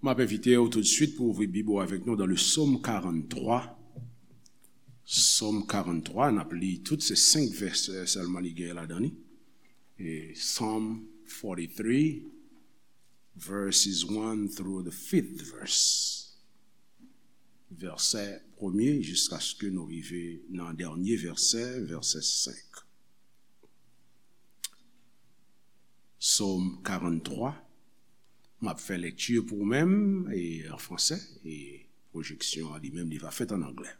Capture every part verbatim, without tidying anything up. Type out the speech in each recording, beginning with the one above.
M ap envite w toutswit pou ouvri Bib ou avèk nou dans le Psaume quarante-trois. Psaume quarante-trois, n ap li tout, se senk vèsè sèlman li gen ladan li. E Psalm forty-three, verses one through the fifth verse. Vèsè premye jiskaske nou rive nan dènye vèsè, vèsè senk. Psaume quarante-trois. M ap fè lekti pou ou menm, e an fransè, e pwojeksyon an li menm, li va fèt an anglè.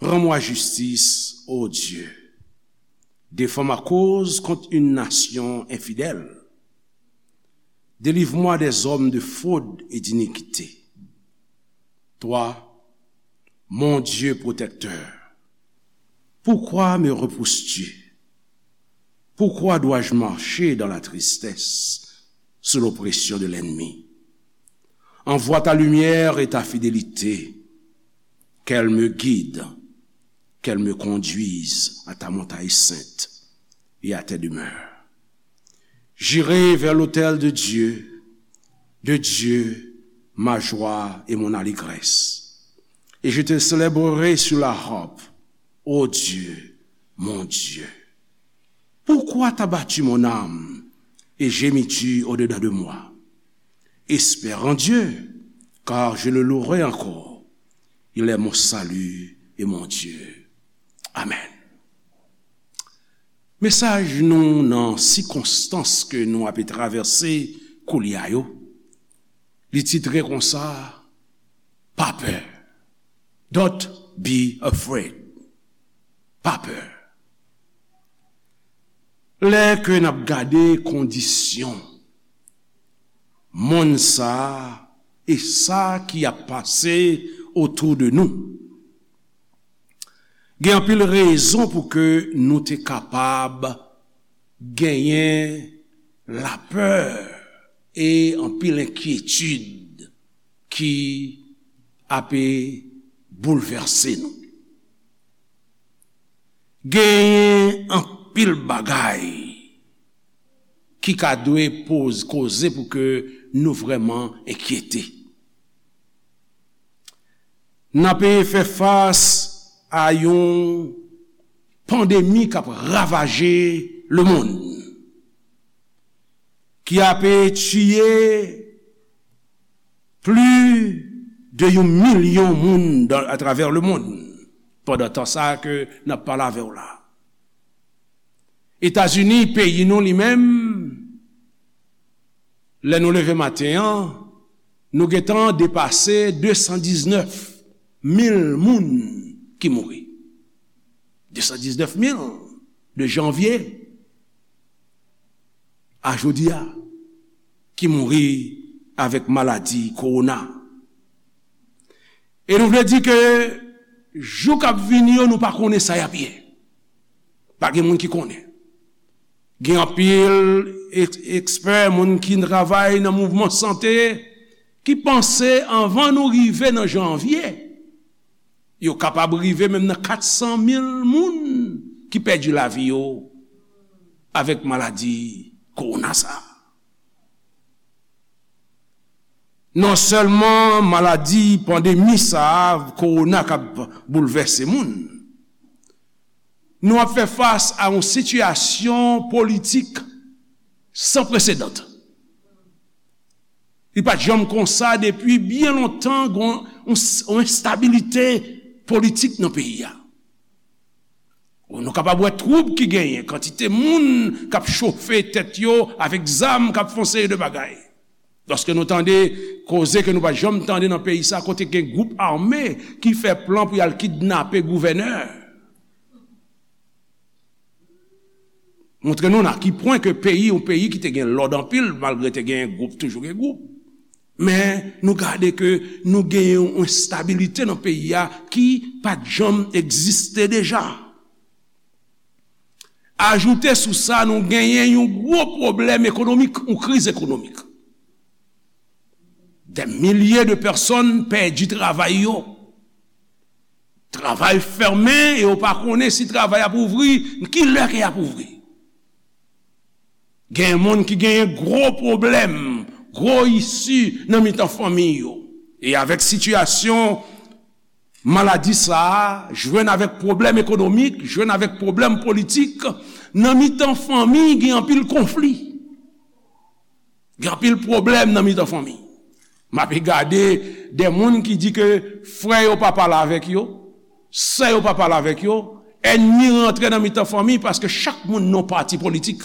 Rends-moi justice, ô Dieu. Défends ma cause contre une nation infidèle. Délivre-moi des hommes de fraude et d'iniquité. Toi, mon Dieu protecteur, pourquoi me repousses-tu? Pourquoi dois-je marcher dans la tristesse, sous l'oppression de l'ennemi? Envoie ta lumière et ta fidélité, qu'elle me guide, qu'elle me conduise à ta montagne sainte et à tes demeures. J'irai vers l'autel de Dieu, de Dieu, ma joie et mon allégresse. Et je te célébrerai sur la harpe, ô Dieu, mon Dieu. Pourquoi t'as battu mon âme et gémis-tu au-dedans de moi? Espère en Dieu, car je le louerai encore. Il est mon salut et mon Dieu. Amèn. Mesaj nou nan sikonstans ke nou ape travèse koulye a yo, li titre konsa, pa pè. Don't be afraid. Pa pè. Lè ke n ap gade kondisyon monn sa a e sa ki ap pase otou de nou, gen anpil rezon pou ke nou te kapab genyen lapè e anpil enkyetid ki ape boulvèse nou. Genyen anpil bagay ki ka dwe poz, koze pou ke nou vrèman enkyete. N ape fè fas a yon pandemi k ap ravaje lemonn, ki ape tiye plis de yon milyon moun dan, atravè lemonn, pandan tan sa a ke n ap pale avè w la. Etazini, peyi nou li menm, lè nou leve maten an, nou gentan depase de san diznèf mil moun ki mouri. De san diznèf mil de janvye a jodi a ki mouri avèk maladi kowona. E nou vle di ke jou k ap vini yo, nou pa konnen sa y ap ye. Pa gen moun ki konnen. Gen anpil eks-, ekspè, moun ki travay nan mouvman sante, ki panse anvan nou rive nan janvye, yo kapab rive menm nan kat san mil moun ki pèdi lavi yo avèk maladi kowona sa a. Non sèlman maladi pandemi sa a, kowona k ap boulvèse moun, nou ap fè fas a yon sitiyasyon politik san presedan. Li pa t janm konsa depi byen lontan, gen yon, yon, yon enstabilite politik nan peyi a. Nou kapab wè twoub ki genyen, kantite moun k ap chofe tèt yo avèk zam, k ap fè yon seri de bagay. Lòske nou tande koze ke nou pa t janm tande nan peyi sa, kote gen gwoup ame ki fè plan pou y al kidnape gouvènè. Montre nou nan ki pwen ke peyi, yon peyi ki te gen lòd anpil, malgre te gen gwoup, toujou gen gwoup. Men nou gade ke nou gen yon enstabilite nan peyi a ki pa t janm egziste deja. Ajoute sou sa, nou genyen yon gwo pwoblèm ekonomik, yon kriz ekonomik. Dè milye de pèsòn pèdi travay yo. Travay fèmen e yo pa konnen si travay ap ouvri, ki lè ke y ap ouvri. Gen moun ki genyen gwo pwoblèm, gwo isi nan mitan fanmi yo. E avèk sitiyasyon maladi sa a, jwenn avèk pwoblèm ekonomik, jwenn avèk pwoblèm politik, nan mitan fanmi gen anpil konfli. Gen anpil pwoblèm nan mitan fanmi. M ape gade de moun ki di ke frè yo pa pale avèk yo, sè yo pa pale avèk yo, ènmi rantre nan mitan fanmi paske chak moun nan pati politik.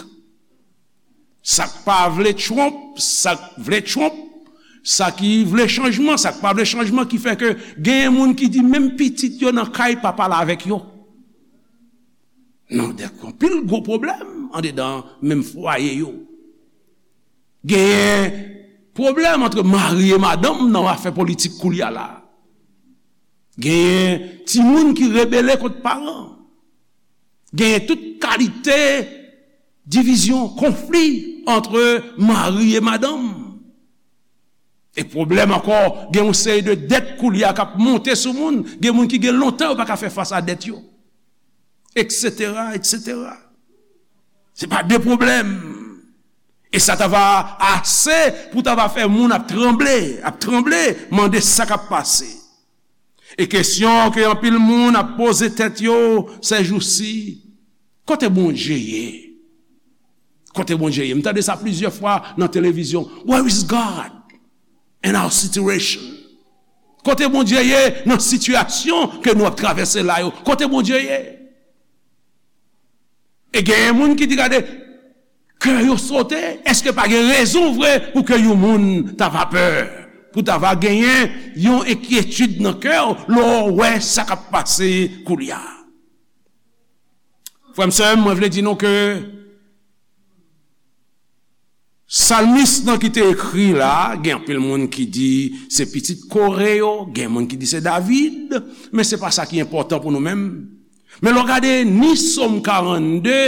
Sa k pa vle Trump, sa k vle Trump, sa ki vle chanjman, sa k pa vle chanjman, ki fè ke genyen moun ki di menm pitit yo nan kay pa pale avèk yo. Nan de anpil gwo pwoblèm andedan menm fwaye yo. Genyen pwoblèm ant mari e madanm nan afè politik koulye a la. Genyen timoun ki rebele kont paran. Genyen tout kalite divizyon, konfli ant mari e madanm. E pwoblèm ankò, gen yon seri de dèt koulye a k ap monte sou moun. Gen moun ki gen lontan yo pa ka fè fas a dèt yo, etsetera, etsetera. Se pa de pwoblèm. E sa ta va ase pou ta va fè moun ap tranble, ap tranble, mande sa k ap pase. E kesyon ke anpil moun ap poze tèt yo sèjousi, kote Bondye ye? Kote Bondye ye? M tande sa plizyè fwa nan televizyon. Where is God in our situation? Kote Bondye ye nan sitiyasyon ke nou ap travèse la yo? Kote Bondye ye? E genyen moun ki di, gade, kè yo sote, èske pa gen rezon vre pou ke yon moun ta va pè, pou ta va genyen yon enkyetid nan kè w lè w wè sa k ap pase koulye a? Frè m, sè m, mwen vle di nou ke salmis nan ki te ekri la, gen anpil moun ki di se pitit Kore yo, gen moun ki di se David, men se pa sa ki enpòtan pou nou menm. Men lè w gade ni Sòm karannde,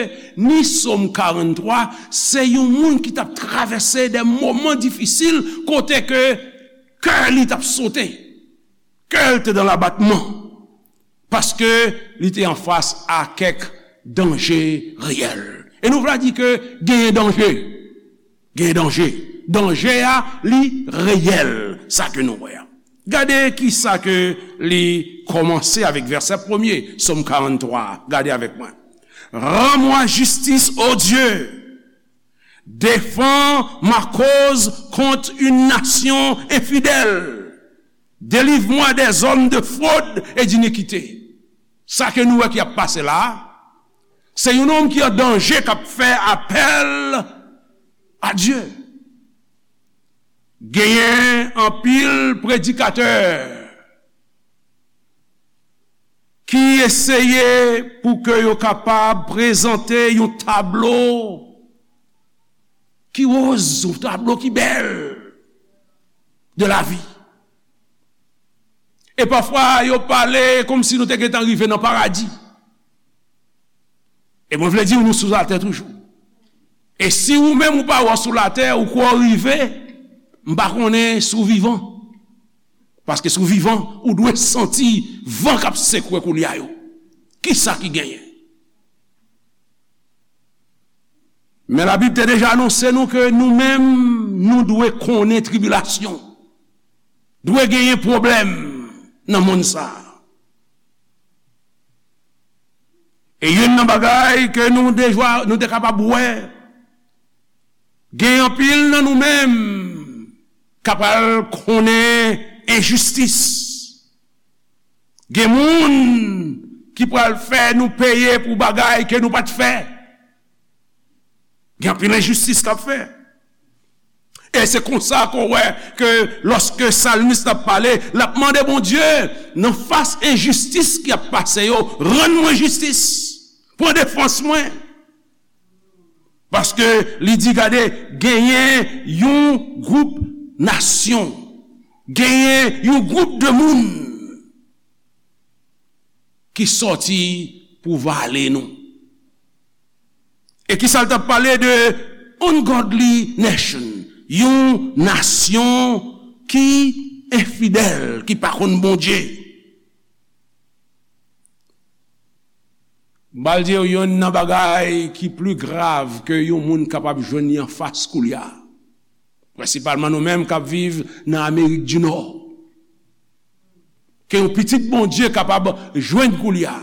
ni Sòm karanntwa, se yon moun ki t ap travèse de moman difisil kote ke kè li t ap sote, kè l te nan labatman, paske li te anfas a kèk danje reyèl. E nou vle di ke genyen danje. Gen danje. Danje a, li reyèl, sa ke nou wè a. Gade ki sa ke li kòmanse avèk vèsè premye, Sòm karanntwa. Gade avèk mwen. Rends-moi justice, ô Dieu. Défends ma cause contre une nation infidèle. Délivre-moi des hommes de fraude et d'iniquité. Sa ke nou wè ki ap pase la a, se yon nonm ki an danje k ap fè apèl a Dye. Genyen anpil predikatè ki eseye pou ke yo kapab prezante yon tablo ki woz, yon tablo ki bèl de lavi. E pafwa, yo pale kòmsi nou te gentan rive nan paradi. E mwen vle di w, nou sou latè toujou. E si ou menm ou pa wè w sou latè, ou kwè w rive, m pa konnen si w vivan. Paske si w vivan, ou dwe santi van k ap sekwe koulye a yo. Kisa ki genyen? Men Labib te deja anonse nou ke nou menm, nou dwe konnen tribilasyon. Dwe genyen pwoblèm nan monn sa a. E youn nan bagay ke nou deja, nou te kapab wè, gen anpil nan nou menm k ap al konnen enjistis. Gen moun ki pral fè nou peye pou bagay ke nou pa t fè. Gen anpil enjistis k ap fè. E se konsa ke w wè ke lòske salmis la ap pale, l ap mande Bondye, nan fas enjistis ki ap pase yo, rann mwen jistis. Pran defans mwen. Paske li di, gade, genyen yon gwoup nasyon, genyen yon gwoup de moun ki sòti pou vale nou. E kisa l t ap pale de ungodly nation, yon nasyon ki enfidèl, ki pa konn Bondye. M pral di w youn nan bagay ki pli grav ke yon moun kapab jwenn li anfas koulye a. Prensipalman nou menm k ap viv nan Amerik di Nò, ke yon pitit Bondye kapab jwenn koulye a.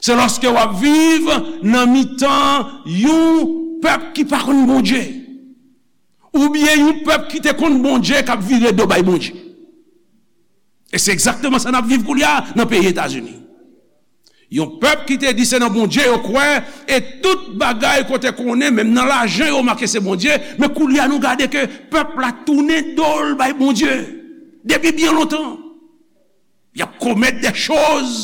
Se lòske w ap viv nan mitan yon pèp ki pa konn Bondye, oubyen yon pèp ki te konn Bondye k ap vire do bay Bondye. E se egzakteman sa n ap viv koulye a nan peyi Etazini. Yon pèp ki te di se nan Bondye yo kwè, e tout bagay kote konnen, menm nan lajan yo make se Bondye, men koulye a nou gade ke pèp la tounen do l bay Bondye depi byen lontan. Y ap komèt de choz,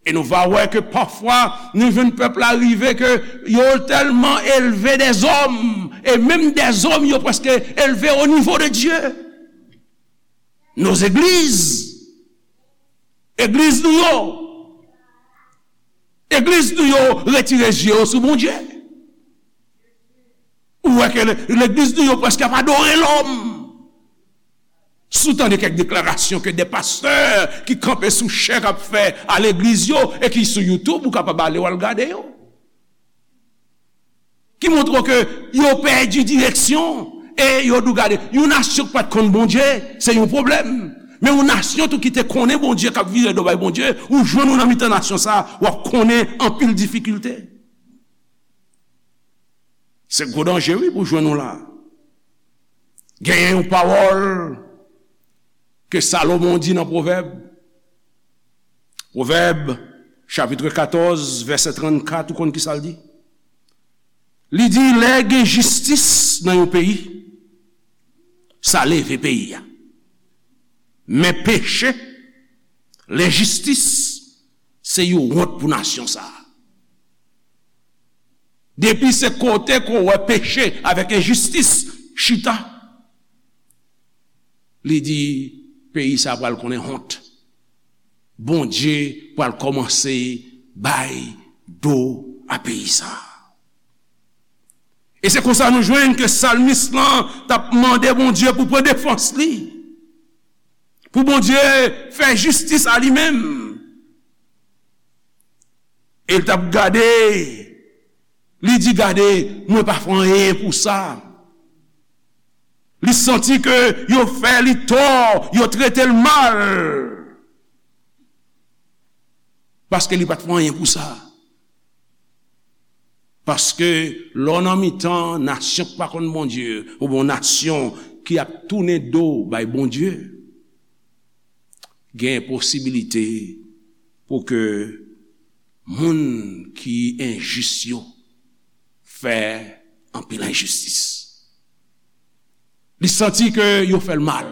e nou va wè ke pafwa nou jwenn pèp la rive ke yo tèlman elve dèzòm, e menm dèzòm yo prèske elve o nivo de Dye. Nos églises, egliz nou yo, egliz nou yo retire zye yo sou Bondye. Ou wè ke le- legliz nou yo prèske ap adore lòm. Si w tande kèk deklarasyon ke de pastè ki kanpe sou chè k ap fè a legliz yo e ki sou YouTube, ou kapab ale w al gade yo. Ki montre w ke yo pèdi direksyon e yo di w gade, yon nasyon k pa t konn Bondye, se yon pwoblèm. Men yon nasyon tou ki te konnen Bondye, k ap vire do bay Bondye, ou jwenn ou nan mitan nasyon sa, w ap konnen anpil difikilte. Se gwo danje, wi, pou jwenn ou la. Genyen yon pawòl ke Salomon di nan Pwovèb. Pwovèb, chapit katòz, vèsè trannkat, ou konn ki sa l di? Li di, lè gen jistis nan yon peyi, sa leve peyi a. Men peche, lenjistis, se yon wont pou nasyon sa a. Depi se kote ke w wè peche avèk enjistis chita, li di, peyi sa a pral konnen wont. Bondye pral kòmanse bay do a peyi sa a. E se konsa nou jwenn ke salmis lan t ap mande Bondye pou pran defans li, pou Bondye fè jistis a li menm. E l t ap gade, li di, gade, mwen pa fè anyen pou sa. Li santi ke yo fè li tò, yo trete l mal. Paske li pa t fè anyen pou sa. Paske lè w nan mitan nasyon k pa konn Bondye, oubyen yon nasyon ki ap tounen do bay Bondye, gen posibilite pou ke moun ki enjis yo fè anpil enjistis. Li santi ke yo fè l mal.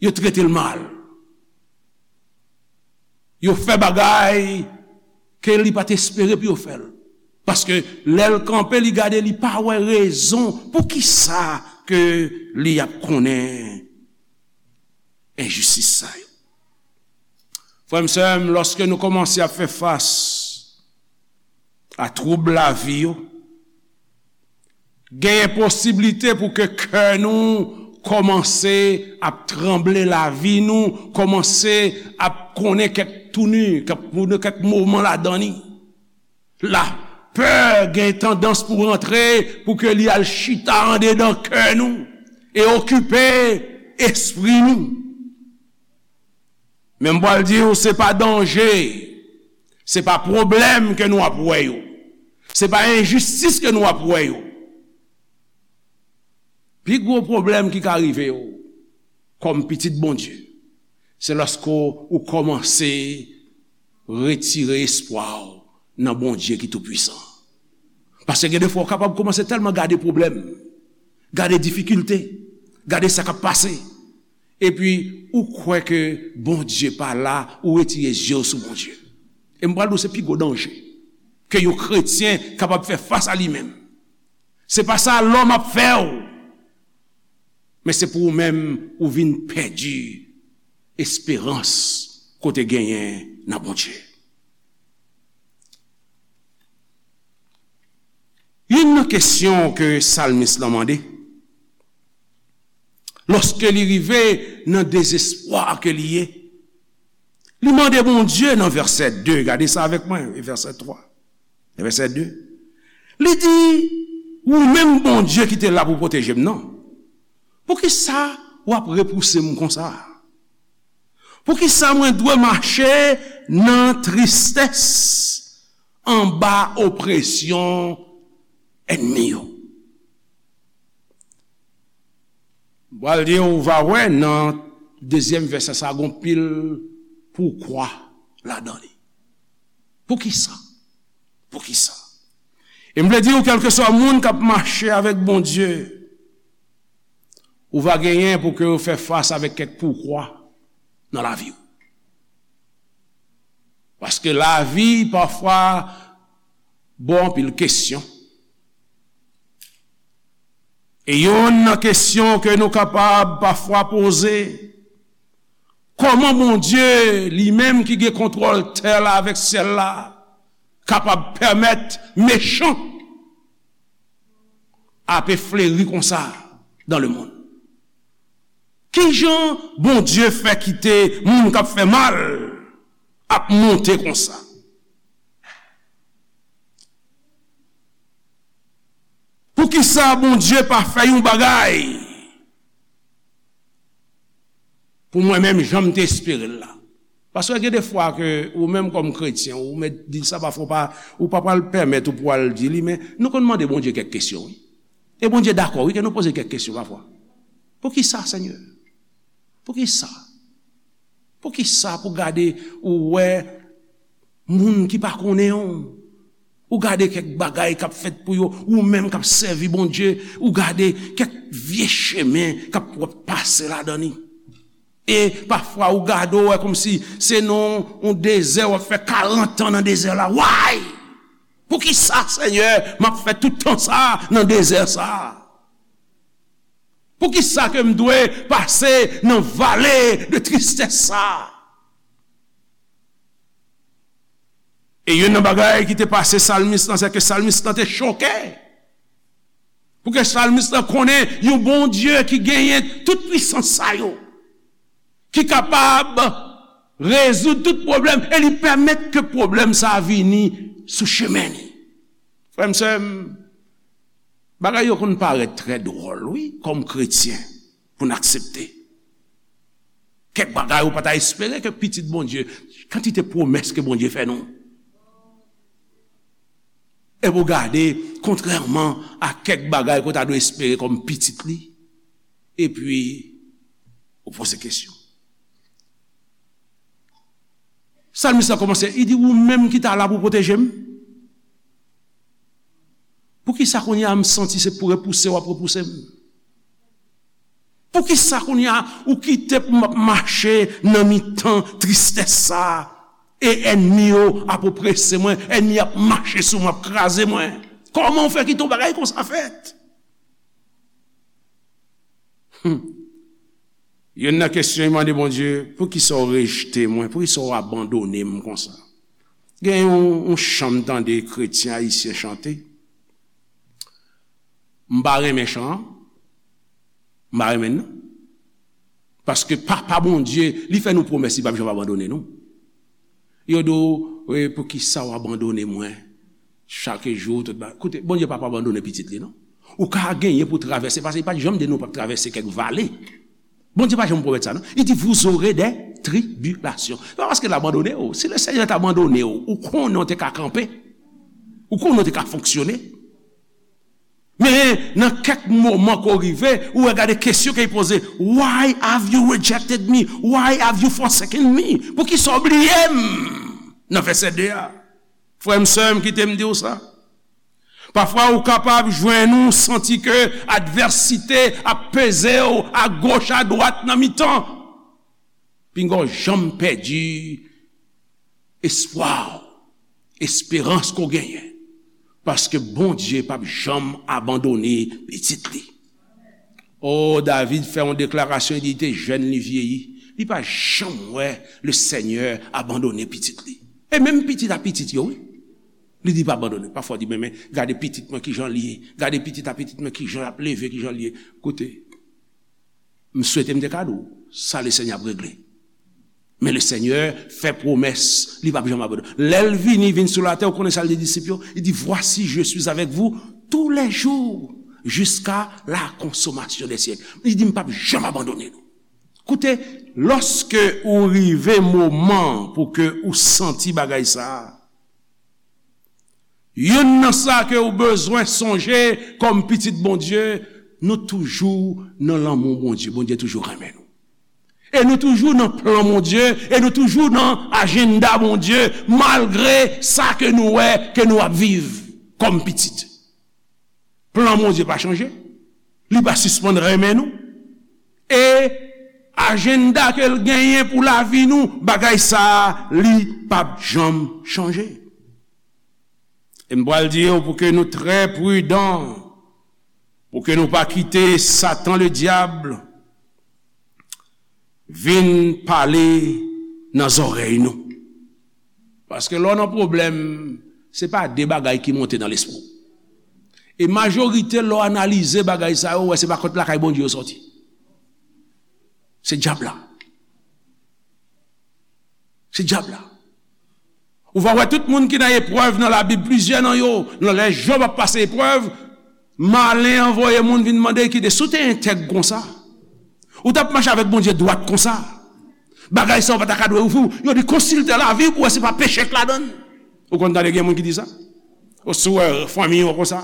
Yo trete l mal. Yo fè bagay ke li pa t espere pou yo fè l. Paske lè l kanpe, li gade, li pa wè rezon poukisa ke li ap konnen enjistis sa yo. Frè m, sè m, lòske nou kòmanse ap fè fas a twoub lavi yo, genyen posiblite pou ke kè nou kòmanse ap tranble, lavi nou kòmanse ap konnen kèk touni, kèk, kèk moman ladan li. Lapè gen tandans pou rantre, pou ke li al chita andedan kè nou e okipe espri nou. Men m pral di w, se pa danje, se pa pwoblèm ke nou ap wè yo, se pa enjistis ke nou ap wè yo. Pi gwo pwoblèm ki ka rive w kòm pitit Bondye, se lòske w kòmanse retire espwa w nan Bondye ki toupwisan. Paske gen de fwa w kapab kòmanse tèlman gade pwoblèm, gade difikilte, gade sa k ap pase, epi ou kwè ke Bondye pa la, ou retire zye w sou Bondye. E m pral di w, se pi gwo danje ke yon kretyen kapab fè fas a li menm. Se pa sa lòm ap fè w. Men se pou ou menm, ou vin pèdi esperans ke w te genyen nan Bondye. Youn nan kesyon ke salmis lan mande, lòske li rive nan dezespwa ke li ye, li mande Bondye nan vèsè de, gade sa avèk mwen, e vèsè twa, e vèsè de. Li di, Ou menm Bondye ki te la pou pwoteje m nan. Poukisa w ap repouse m konsa? Poukisa mwen dwe mache nan tristès anba opresyon ènmi yo? M pral di w, ou va wè nan dezyèm vèsè sa, gon pil poukwa ladan li. Poukisa? Poukisa? E m vle di w, kèlkeswa moun k ap mache avèk Bondye, ou va genyen pou ke w fè fas avèk kèk poukwa nan lavi w. Paske lavi pafwa ba w anpil kesyon. E youn nan kesyon ke nou kapab pafwa poze, kòman Bondye, li menm ki gen kontwòl tè la avèk syèl la, kapab pèmèt mechan ape fleri konsa dans le monde? Kijan Bondye fè kite moun k ap fè mal ap monte konsa? Poukisa Bondye pa fè yon bagay pou mwen menm jan m te espere l la? Paske gen de fwa ke ou menm kòm kretyen, ou mèt di sa, pafwa ou pa, ou pa pral pèmèt ou pou al di li, men nou konn mande Bondye kèk kesyon, wi. E Bondye dakò, wi, ke nou poze kèk kesyon pafwa. Poukisa, Senyè? Poukisa? Poukisa pou gade ou wè moun ki pa konnen w, ou gade kèk bagay k ap fèt pou yo, ou menm k ap sèvi Bondye, ou gade kèk vye chemen k ap, w ap pase ladan li. E pafwa ou gade, ou wè kòmsi se nan yon dezè, w ap fè karant an nan dezè la. Why? Poukisa, Senyè, m ap fè tout tan sa a nan dezè sa a? Poukisa ke m dwe pase nan vale de tristès sa a? E youn nan bagay ki te pase salmis lan, se ke salmis lan te choke. Pou ke salmis lan konnen yon Bondye ki genyen tout pwisans sa yo, ki kapab rezoud tout pwoblèm, e li pèmèt ke pwoblèm sa a vini sou chemen li. Frè m, sè m, bagay yo konn parèt trè dwòl, wi, kòm kretyen, pou n aksepte. Kèk bagay ou pa ta espere ke pitit Bondye, kantite pwomès ke Bondye fè nou. Epi w gade, kontrèman a kèk bagay ke w ta dwe espere kòm pitit li, epi ou poze kesyon. Salmis la kòmanse, li di, ou menm ki ta la pou pwoteje m? Poukisa kounye a m santi se pou repouse w ap repouse m? Poukisa kounye a ou kite pou m ap mache nan mitan tristès sa a, e ènmi yo ap oprese mwen, ènmi ap mache sou mwen, ap kraze mwen? Kòman w fè kite yon bagay konsa fèt? Hmm. Youn nan kesyon, li mande Bondye, poukisa w rejte mwen? Poukisa w abandone m konsa? Gen yon, yon chan m tande kretyen ayisyen chante. M pa renmen chan an. M pa renmen l, non. Paske Papa Bondye, li fè nou pwomès, li p ap janm abandone nou. Yo di w, "E, poukisa w abandone mwen chak jou?" Tout ba-, koute, Bondye p ap abandone pitit li, non. Ou ka genyen pou travèse, paske li pa t janm di nou p ap travèse kèk vale. Bondye pa janm pwomèt sa, non. Li di, "Vous aurez des tribulations." Se pa paske l abandone w. Si le Senyè t abandone w, ou konnen w te ka kanpe. Ou konnen w te ka fonksyone. Men nan kèk moman ke w rive, ou wè gade kesyon ke l poze, "Why have you rejected me? Why have you forsaken me?" Poukisa w bliye m? Nan vèsè de a. Frè m, sè m, kite m di w sa. Pafwa ou kapab jwenn ou santi ke advèsite ap peze w agoch, adwat, nan mitan. Pinga w janm pèdi espwa w, esperans ke w genyen, paske Bondye p ap janm abandone pitit li. O, David fè yon deklarasyon, li di, li te jèn, li vyeyi, li pa janm wè le Senyè abandone pitit li. E menm pitit a pitit yo, wi. Li di pa abandone. Pafwa w di, "Men, men, gade pitit mwen kijan li ye. Gade pitit a pitit mwen kijan l ap leve, kijan li ye." Koute, m swete m te ka di w sa le Senyè ap regle. Men le Senyè fè pwomès, li p ap janm abandone. Lè l vini, vin sou latè, ou konnen sa l di disip yo? Li di, Voici, je suis avec vous tous les jours, jusqu'à la consommation des siècles. Li di, M p ap janm abandone nou. Koute, lòske ou rive moman pou ke ou santi bagay sa a, youn nan sa ke ou bezwen sonje kòm pitit Bondye, nou toujou nan lanmou Bondye. Bondye toujou renmen nou. E nou toujou nan plan Bondye, e nou toujou nan ajanda Bondye, malgre sa ke nou wè ke nou ap viv kòm pitit. Plan Bondye pa chanje, li pa sispann renmen nou. E ajanda ke l genyen pou lavi nou, bagay sa a, li p ap janm chanje. E m pral di yo pou ke nou trè pridan, pou ke nou pa kite Satan Ledyab vin pale nan zòrèy nou. Paske lè w nan pwoblèm, se pa de bagay ki monte nan lespri w. E majorite lè w analize bagay sa yo, ou wè se pa kot lakay Bondye yo sòti. Se dyab la. Se dyab la. Ou va wè tout moun ki nan eprèv nan Labib, plizyè nan yo, nan lè Jòb ap pase eprèv, malen an voye moun vin mande, kite, si w te entèg konsa, ou t ap mache avèk Bondye dwat konsa, bagay sa yo pa ta ka dwe ouvri w. Yo di, konsilte lavi w pou wè si pa peche k ladan l. Ou konn tande gen moun ki di sa? Ou si w wè fanmi w konsa,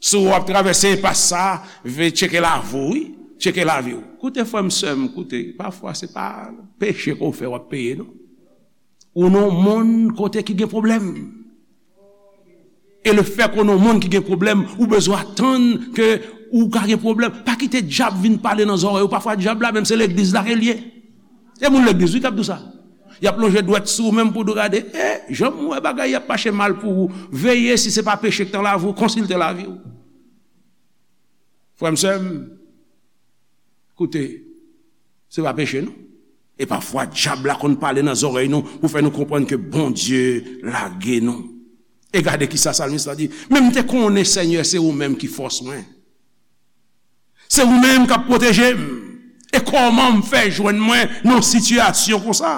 si w ap travèse enpas sa, ve tcheke lavi w, wi. Tcheke lavi w. Koute, frè m, sè m, koute. Pafwa, se pa peche ke w fè w ap peye, non. Ou nan yon monn kote ki gen pwoblèm. E le fè ke w nan yon monn ki gen pwoblèm, ou bezwen atann ke ou ka gen pwoblèm. Pa kite dyab vin pale nan zòrèy ou. Pafwa, dyab la menm, se legliz la ke l ye. E moun legliz, wi, k ap di w sa. Y ap lonje dwèt sou ou menm pou di w gade, e, jan m wè bagay y ap mache mal pou ou. Veye si se pa peche k nan lavi w, konsilte lavi w. Frè m, sè m, koute, se pa peche, non. E pafwa, dyab la konn pale nan zòrèy nou pou fè nou konprann ke Bondye lage nou. E gade kisa salmis la di, Men m te konnen, Senyè, se ou menm ki fòs mwen. Se ou menm k ap pwoteje m. E kòman m fè jwenn mwen nan yon sitiyasyon konsa?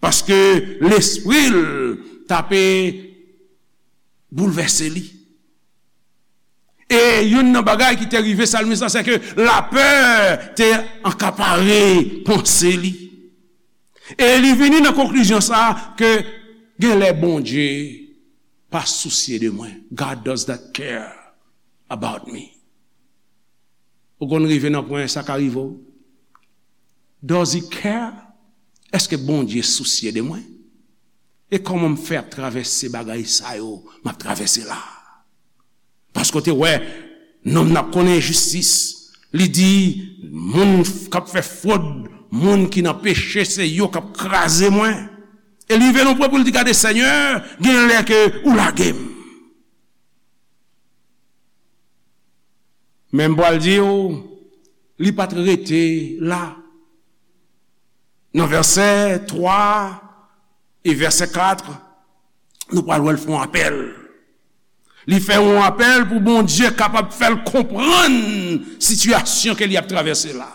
Paske lespri l t ape boulvèse li. E youn nan bagay ki te rive salmis la, se ke lapè te ankapare panse li. E li vini nan konklizyon sa a ke genlè Bondye pa sousye de mwen. God does not care about me. Ou konn rive nan pwen sa ka rive w? Does he care? Èske Bondye sousye de mwen? E kòman m fè ap travèse bagay sa yo m ap travèse la? Paske w te wè, nonm nan ap konnen enjistis. Li di, moun k ap fè fwod, moun ki nan peche, se yo k ap kraze mwen. E li rive nan pwen pou l di, gade, Senyè, gen lè ke ou lage m. Men m pral di w, li pa t rete la. Nan vèsè twa e vèsè kat, nou pral wè l fè yon apèl. Li fè yon apèl pou Bondye kapab fè l konprann sitiyasyon ke li ap travèse la.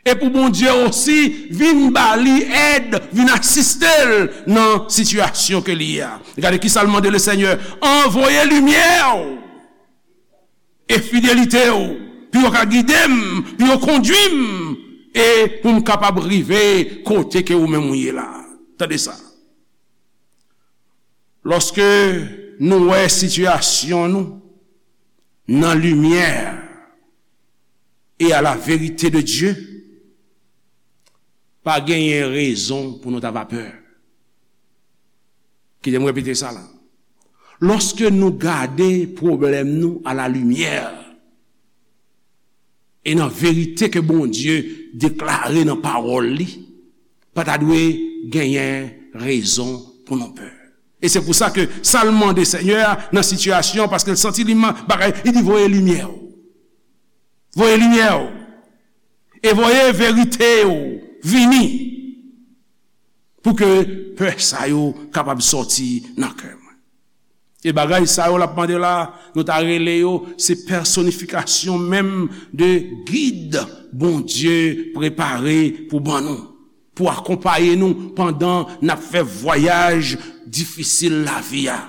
E pou Bondye osi vin ba li èd, vin asiste l nan sitiyasyon ke li ye a. Gade kisa l mande le Senyè, anvoye limyè w e fidelite w, pou yo ka gide m, pou yo kondui m, e pou m kapab rive kote ke ou menm ou ye la. Tande sa. Lòske nou wè sitiyasyon nou nan limyè e a la verite de Dye, pa genyen rezon pou nou ta va pè. Kite m repete sa la. Lòske nou gade pwoblèm nou a la limyè e nan verite ke Bondye deklare nan pawòl li, pa ta dwe genyen rezon pou nou pè. E se pou sa ke sa l mande Senyè a nan sitiyasyon, paske l santi li ma-, bagay, li di, voye limyè w. Voye limyè w. E voye verite w vini. Pou ke pè sa yo kapab sòti nan kè mwen. E bagay sa yo l ap mande la, nou ta rele yo, se pèsonifikasyon menm de gid Bondye prepare pou ban nou. pou akonpaye nou pandan n ap fè vwayaj difisil lavi a.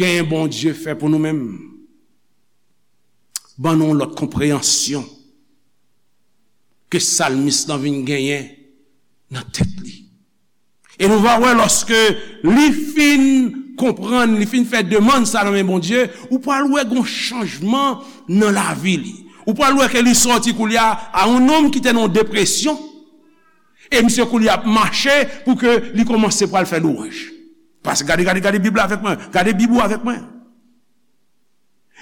Gen Bondye fè pou nou menm. Ban nou yon lòt konpreyansyon ke salmis lan vin genyen nan tèt li. E nou va wè lòske li fin konprann, li fin fè demann sa nan men Bondye, ou pral wè gon chanjman nan lavi li. Ou pral wè ke li sòti koulye a a yon nonm ki te nan yon depresyon, e misye koulye a ap mache pou ke li kòmanse pral fè lwanj. Paske gade, gade, gade Bib la avèk mwen, gade Bib ou avèk mwen.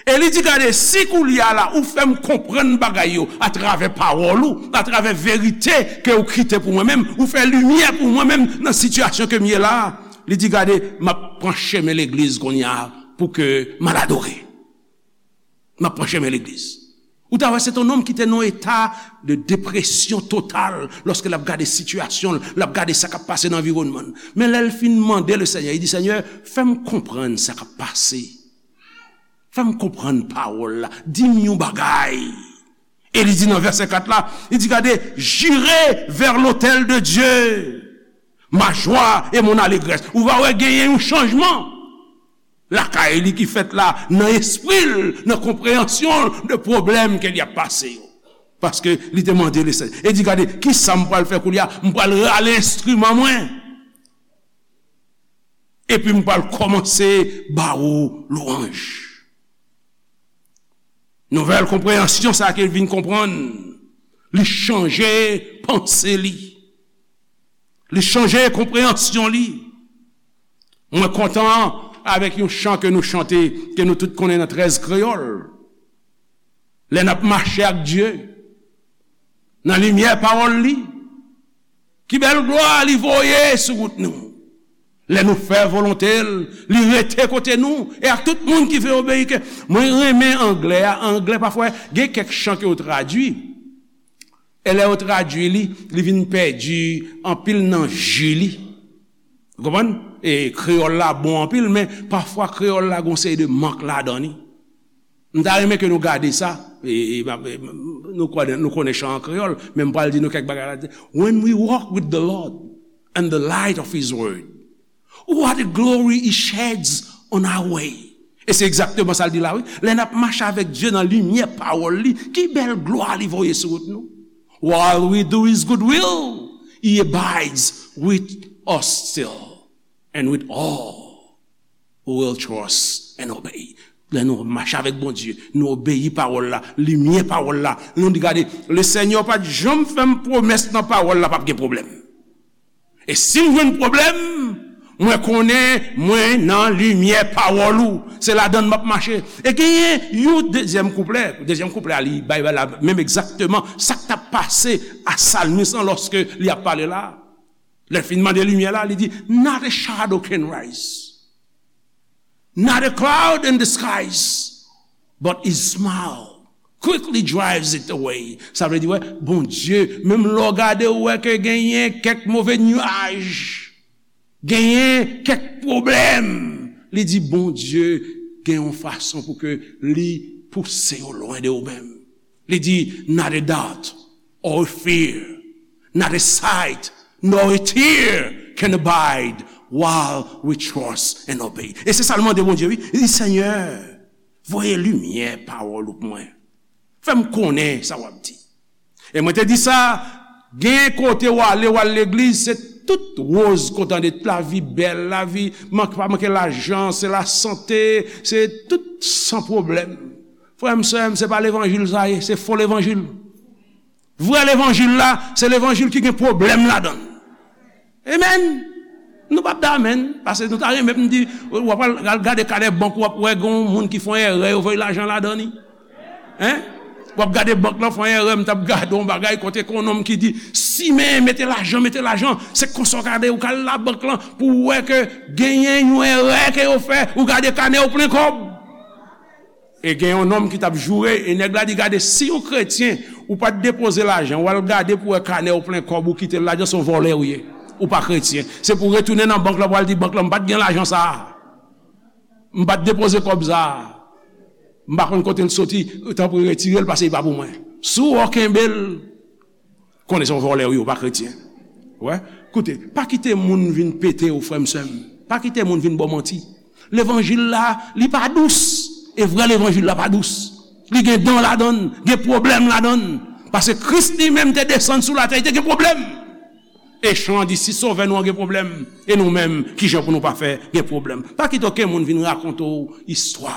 E li di, gade, si koulye a la, ou fè m konprann bagay yo atravè pawòl ou, atravè verite ke ou kite pou mwen menm, ou fè limyè pou mwen menm nan sitiyasyon ke m ye la a, li di, gade, m ap pran chemen legliz kounye a pou ke m al adore. M ap pran chemen legliz. Ou ta wè, se te yon nonm ki te nan yon eta de depresyon total lòske l ap gade sitiyasyon l, l ap gade sa k ap pase nan anviwònman l. Men lè l fin mande le Senyè, li di, Senyè, fè m konprann sa k ap pase. Fè m konprann pawòl la. Di m yon bagay. E li di nan vèsè kat la, li di, gade, j'irai vers l'autel de Dieu, ma joie et mon allégresse. Ou va wè genyen yon chanjman lakay li ki fèt la, nan espri l, nan konpreyansyon l de pwoblèm ke li ap pase yo. Paske li te mande Lesenyè. E di, gade, kisa m pral fè koulye a? M pral rale enstriman mwen. Epi m pral kòmanse ba ou lwanj. Nouvèl konpreyansyon sa ke l vin konprann, li chanje panse li. Li chanje konpreyansyon li. Mwen kontan avèk yon chan ke nou chante, ke nou tout konnen nan trèz kreyòl. Lè n ap mache ak Dye, nan limyè pawòl li, ki bèl glwa li voye sou wout nou. Lè nou fè volonte l, li rete kote nou, e ak tout moun ki vle obeyi ke. Mwen renmen anglè a, anglè pafwa, gen kèk chan ke yo tradui. E lè yo tradui li, li vin pèdi anpil nan ji li. Ou konprann? E kreyòl la bon anpil, men pafwa kreyòl la gon seri de mank ladan li. M ta renmen ke nou gade sa. E, e, e, nou konnen, nou konnen chan an kreyòl, men m pral di nou kèk bagay la. When we walk with the Lord and the light of His word, what a glory He sheds on our way. E se egzakteman sa l di la, wi. Lè n ap mache avèk Dye nan limyè pawòl li, ki bèl glwa li voye sou wout nou. While we do His good will, He abides with us still and with all who will trust and obey. Lè nou mache avèk Bondye, nou obeyi pawòl la, limyè pawòl la, nou di, gade, Lesenyè pa t janm fè m pwomès nan pawòl la p ap gen pwoblèm. E si m jwenn pwoblèm, mwen konnen mwen nan limyè pawòl ou. Se ladan l m ap mache. E genyen yon dezyèm kouplè. Dezyèm kouplè a, li bay la menm egzakteman sa k t ap pase a salmis lan lòske li ap pale la. Lè l fin mande limyè la, li di, not a shadow can rise. Not a cloud in the skies, but His smile quickly drives it away. Sa vle di, wè, Bondye, menm lè w gade, ou wè ke genyen kèk move nyaj, genyen kèk pwoblèm, li di, Bondye gen yon fason pou ke li pouse yo lwen de ou menm. Li di, not a doubt or a fear, not a sight nor a tear can abide while we trust and obey. E se sa l mande Bondye, wi. Li di, Senyè, voye limyè pawòl ou pou mwen. Fè m konnen sa w ap di. E mwen te di sa, gen kote w ale, w al legliz, se tout woz kontan de lavi bèl, lavi mank, pa manke lajan, se lasante, se tout san pwoblèm. Frè m, sè m, se pa levanjil sa ye, se fo levanjil. Vrè levanjil la, se levanjil ki gen pwoblèm ladan l. Amen. Nou p ap di amen, paske nou ta renmen pou n di, w ap al, al gade kanè bank ou, w ap wè gen yon moun ki fè yon erè, yo voye lajan ladan li. Hein? W ap gade bank lan fè yon erè, m t ap gade yon bagay kote ke yon nonm ki di, simen, mete lajan, mete lajan, se konsa w gade, ou ka al labank lan pou w wè ke genyen yon erè ke yo fè, ou gade kanè w plen kòb. E gen yon nonm ki t ap joure, e nèg la di, gade, si yon kretyen, ou pa t depoze lajan, w al gade pou wè kanè w plen kòb, ou kite l ladan, se yon vòlè ou ye. Ou pa kretyen. Se pou w retounen nan bank lan, pou w al di bank lan, m pa t gen lajan sa a. M pa t depoze kòb sa a. M pa konn kote l soti, tanpri retire l, paske li pa pou mwen. Si w wè w kenbe l, Konnen se yon vòlè w ye, ou pa kretyen. Wè? Koute, pa kite moun vin pete w, frè m, sè m. Pa kite moun vin ba w manti. Levanjil la, li pa dous. E vrè levanjil la pa dous. Li gen dan ladan l, gen pwoblèm ladan l. Paske Kris li menm te desann sou latè, li te gen pwoblèm. E chan an di, si Sovè nou an gen pwoblèm, e nou menm, kijan pou nou pa fè gen pwoblèm? Pa kite okenn moun vin rakonte w istwa.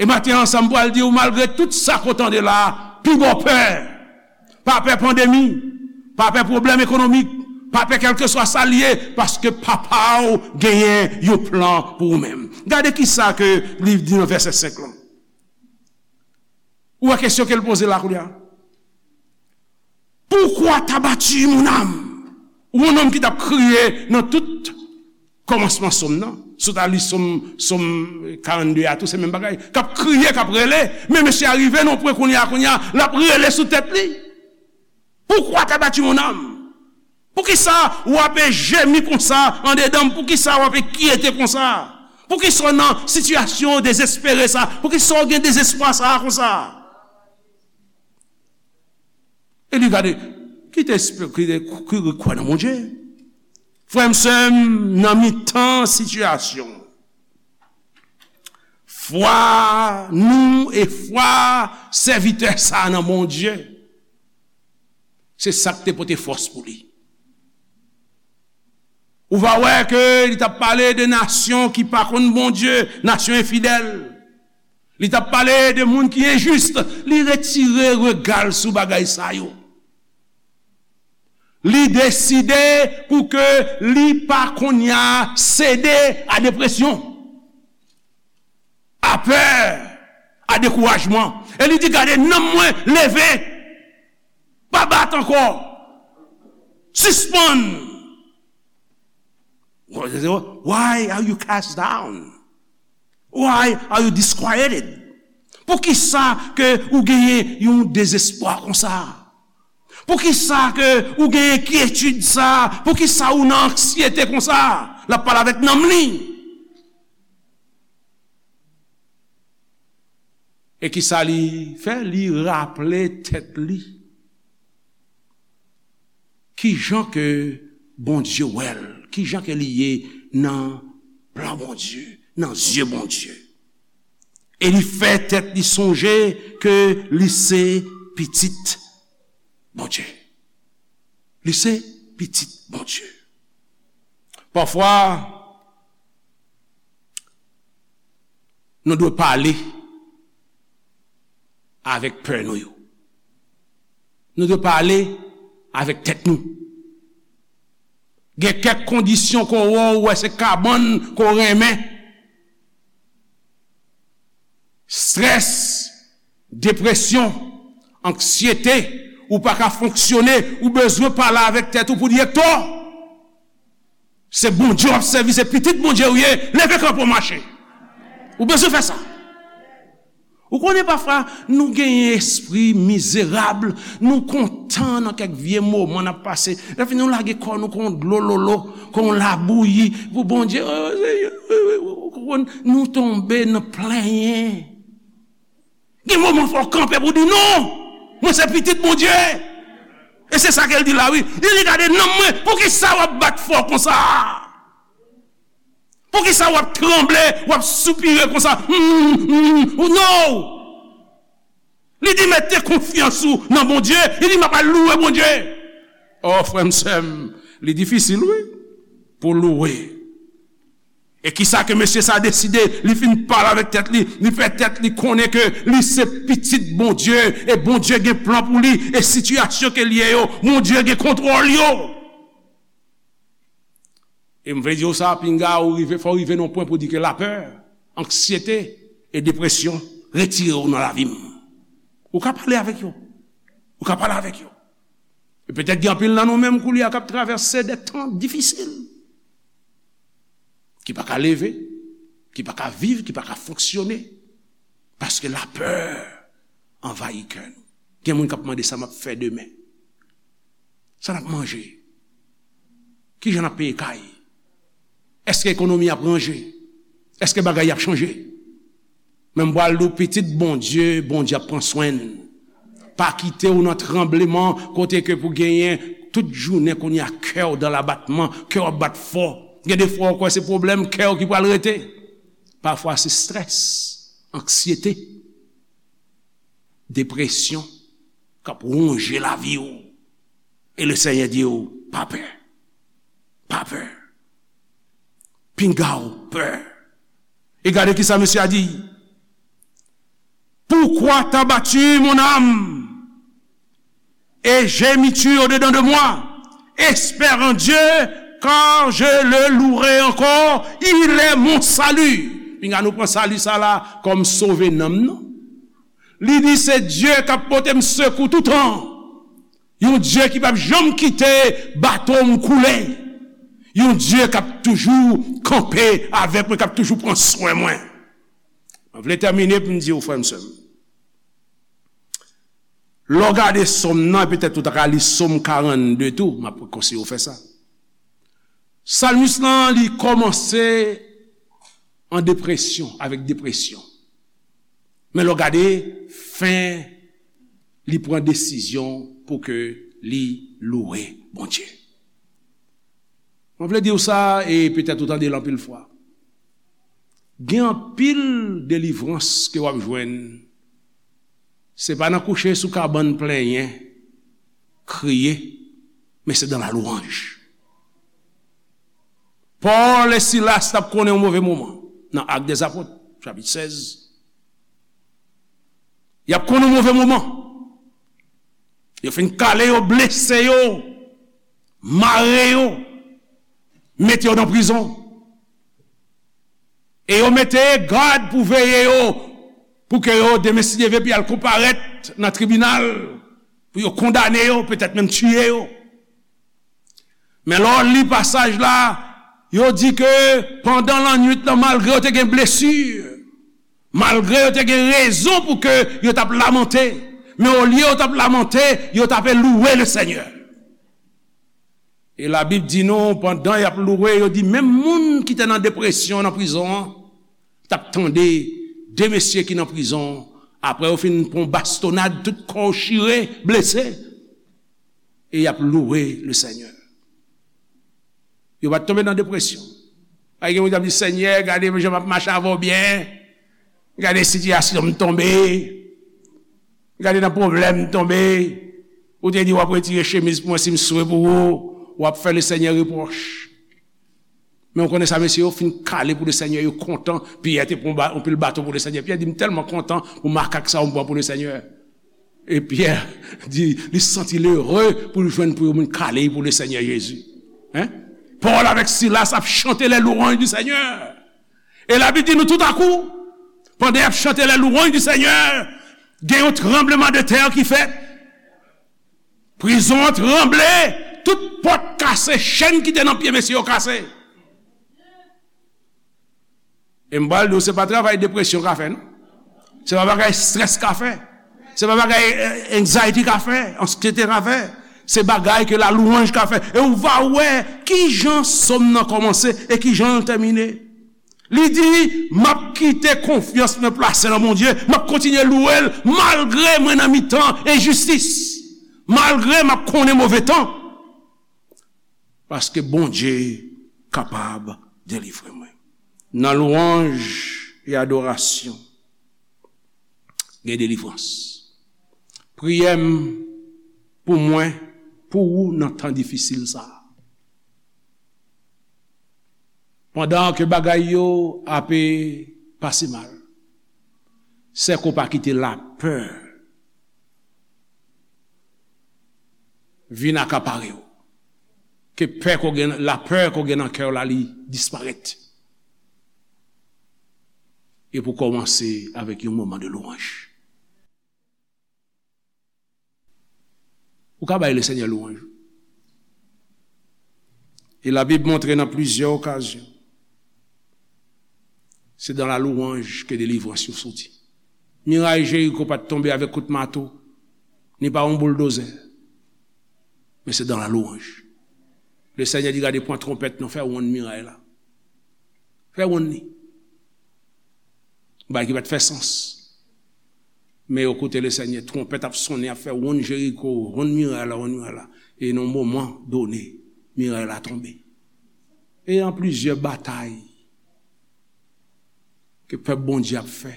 E maten an sa m pral di w, malgre tout sa ke w tande la, pi ba w pè. Pa pè pandemi, pa pè pwoblèm ekonomik, pa pè kèlkeswa sa l ye, paske Papa w genyen yon plan pou ou menm. Gade kisa ke li di nan vèsè senk lan. Ou wè kesyon ke l poze la kounye a? Pourquoi t'as battu mon âme? Ou yon nonm ki t ap kriye nan tout kòmansman sòm nan. Si w ta li sòm, sòm karannde a tou, se menm bagay. K ap kriye, k ap rele. Men mesye a rive nan pwen kounye a, kounye a, l ap rele sou tèt li. Pourquoi t'as battu mon âme? Poukisa w ap jemi konsa andedan m? Poukisa w ap enkyete konsa? Poukisa w nan sitiyasyon dezespere sa? Poukisa w gen dezespwa sa konsa? E li gade, kite espri, kite, ki, ki kwè nan Bondye. Frè m, sè m, nan mitan sitiyasyon, fwa nou e fwa sèvitè sa a nan Bondye, se sa k te pote fòs pou li. Ou va wè ke li t ap pale de nasyon ki pa konn Bondye, nasyon enfidèl. Li t ap pale de moun ki enjis. Li retire rega l sou bagay sa yo. Li deside pou ke li pa kounye a sede a depresyon, a pè, a dekourajman. E li di, gade, nanm mwen leve. Pa bat ankò. Sispann. Why are you cast down? Why are you disquieted? Poukisa ke ou genyen yon dezespwa konsa? Poukisa ke ou gen enkyetid sa? Poukisa ou nan anksyete konsa? L ap pale avèk nanm li. E kisa li fè? Li raple tèt li kijan ke Bondye wè l, kijan ke li ye nan plan Bondye, nan zye Bondye. E li fè tèt li sonje ke li se pitit Bondye. Li se pitit Bondye. Pafwa, nou dwe pale avèk pè nou yo. Nou dwe pale avèk tèt nou. Gen kèk kondisyon ke w wè, w wè se kabann ke w renmen. Strès, depresyon, anksyete, ou pa ka fonksyone, ou bezwen pale avèk tèt ou pou di, Ektò, se Bondye w ap sèvi, se pitit Bondye ou ye, leve kanpe w mache. Ou bezwen fè sa. Ou konnen pafwa, nou genyen espri mizerab, nou kontan nan kèk vye moman n ap pase. Lè fini, nou lage kò nou kon dlo lolo, kon labouyi pou Bondye. Nou tonbe nan plenyen. Gen moman fò w kanpe pou di, non, mwen se pitit Bondye. E se sa ke l di la, wi. Li di, gade nanm mwen, poukisa w ap bat fò konsa? Poukisa w ap tranble, w ap soupire konsa? Hmm, hmm, oh, no! Li di, mete konfyans ou nan Bondye. Li di, m ap al louwe Bondye. O, frè m, sè m, li difisil, wi, pou louwe. E kisa ke mesye sa deside? Li fin pale avèk tèt li, li fè tèt li konnen ke li se pitit Bondye, e Bondye gen plan pou li, e sitiyasyon ke l ye yo, Bondye gen kontwòl yo. E m vle di w sa, pinga ou rive, fò w rive nan pwen pou di ke lapè, anksyete e depresyon retire w nan lavi m. Ou ka pale avèk yo. Ou ka pale avèk yo. E petèt gen anpil nan nou menm koulye a k ap travèse de tan difisil. Ki pa ka leve, ki pa ka viv, ki pa ka fonksyone. Paske lapè anvayi kè nou. Gen moun k ap mande sa m ap fè demen. Sa n ap manje? Kijan n ap peye kay? Èske ekonomi ap ranje? Èske bagay ap chanje? Men m pral di w, pitit Bondye, Bondye ap pran swen l. Pa kite w nan tranbleman kote ke pou genyen tout jounen kounye a kè w dan labatman, kè w ap bat fò. Gen de fwa w kwè se pwoblèm kè w ki pral rete. Pafwa se strès, anksyete, depresyon k ap wonje lavi w. E le Senyè di w, pa pè. Pa pè. Pinga w pè. E gade kisa mesye a di. Pourquoi t'as battu mon âme? Et gémis-tu au-dedans de moi? Espère en Dieu, car je le louerai encore. Il est mon salut. Pinga nou pran sali sa la kòm sove nanm nou. Li di se Dye k ap pote m sekou toutan. Yon Dye ki p ap janm kite bato m koule. Yon Dye k ap toujou kanpe avèk mwen, k ap toujou pran swen mwen. Mwen vle tèmine pou m di w, frè m, sè m, lè w gade sòm nan, petèt ou ta ka li sòm karannde tou, m ap konseye w fè sa. Salmis lan, li kòmanse an depresyon, avèk depresyon. Men lè w gade fen, li pran desizyon pou ke li louwe Bondye. Mwen vle di w sa, e petèt ou tande l anpil fwa. Gen anpil delivrans ke w ap jwenn. Se pa nan kouche sou kabann plenyen, kriye, men se dans la louange. Pòl e Silas t ap konnen yon move moman nan Actes des Apôtres, chapit sèz. Y ap konnen yon move moman. Yo fin kale yo, blese yo, mare yo, mete yo nan prizon. E yo mete gad pou veye yo, pou ke yo, demen si Dye vle, pou y al konparèt nan tribinal, pou yo kondane yo, petèt menm tiye yo. Men lè w li pasaj la, yo di ke pandan lannwit lan, malgre yo te gen blesi, malgre yo te gen rezon pou ke yo t ap lamante, men olye yo t ap lamante, yo t ape louwe le Senyè. E Labib di nou, pandan y ap louwe, yo di menm moun ki te nan depresyon nan prizon an, t ap tande de mesye ki nan prizon, apre yo fin pran bastonad, tout kò yo chire, blese, e y ap louwe le Senyè. Yo pa t tonbe nan depresyon. Pa gen moun k ap di, Senyè, gade jan m ap mache avè w byen. Gade sitiyasyon m tonbe. Gade nan pwoblèm m tonbe. Ou te di w ap retire chemiz pou mwen si m swe pou ou. W ap fè le Senyè repwòch. Men w konnen sa, mesye yo fin kale pou le Senyè, yo kontan. Pyè te pran ba-, yon pil baton pou le Senyè. Pyè di, m tèlman kontan pou makak sa yo m pran pou le Senyè. E Pyè di, li santi l ere pou l jwenn pou yon moun kale pou le Senyè Jezi. Hein? Pòl avèk Silas ap chante les louanges du Seigneur. E Labib di nou toutakou, pandan y ap chante les louanges du Seigneur, gen yon tranbleman de tè ki fèt. Prizon an tranble, tout pòt kase, chenn ki te nan pye mesye yo kase. E m pral di w, se pa travay depresyon ka fè, non. Se pa bagay strès ka fè. Se pa bagay, eh, anxiety ka fè, ansyete ka fè. Se bagay ke la louanj ka fè. E ou va wè kijan sòm nan kòmanse e kijan l tèmine. Li di, m ap kite konfyans mwen plase nan Bondye, m ap kontinye louwe l malgre mwen nan mitan enjistis, malgre m ap konnen move tan. Paske Bondye kapab delivre mwen. Nan lwanj e adorasyon, gen delivrans. Priyè m pou mwen, pou ou nan tan difisil sa a. Pandan ke bagay yo ape pase mal, sèke w pa kite lapè vin akapare w. Ke pè ke w gen, lapè ke w gen nan kè w la, li disparèt. E pou kòmanse avèk yon moman de lwanj. Ou ka bay le Senyè lwanj. E Labib montre nan plizyè okazyon, se dans la louange ke delivrans yo soti. Miray Jeriko pa t tonbe avèk kout mato, ni pa yon bouldozè, men se dans la louange. Le Senyè di, gade, pran twonpèt nou, fè wonn miray la. Fè wonn li. Bagay ki pa t fè sans. Men yo koute Lesenyè, twonpèt ap sonnen, ap fè wonn Jeriko, wonn miray la, wonn miray la. E nan yon moman done, miray la tonbe. E an plizyè batay ke pèp Bondye ap fè,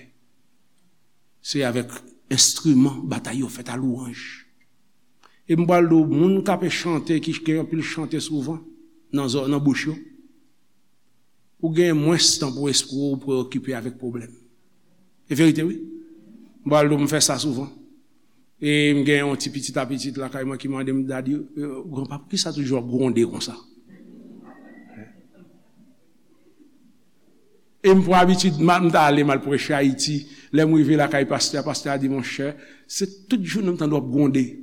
se avèk enstriman batay yo fèt a lwanj. E m pral di w, moun k ape chante, ki gen anpil chante souvan nan zò, nan bouch yo, ou gen mwens tan pou espri w preyokipe avèk pwoblèm. E verite, wi. M pral di w, m fè sa souvan. E m gen yon ti pitit a pitit lakay mwen ki mande m, "Dadi, eh, granpa, poukisa toujou w ap gwonde konsa?" E m pran abitid, m a- m ta ale, m al preche Ayiti. Lè m rive lakay pastè a, pastè a di, "Monchè, se tout jounen m tande w ap gwonde."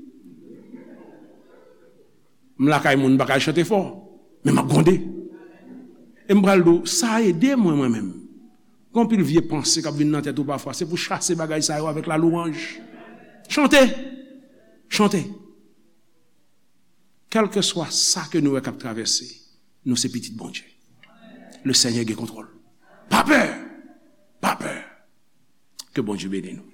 M lakay moun, m pa ka chante fò, men m ap gwonde. E m pral di w, sa ede mwen, mwen menm. Gen anpil vye panse k ap vin nan tèt ou pafwa. Se pou chase bagay sa yo avèk lalwanj. Chante! Chante! Kèlkeswa sa ke nou wè k ap travèse, nou se pitit Bondye. Lesenyè gen kontwòl. Pa pè! Pa pè! Ke Bondye beni nou.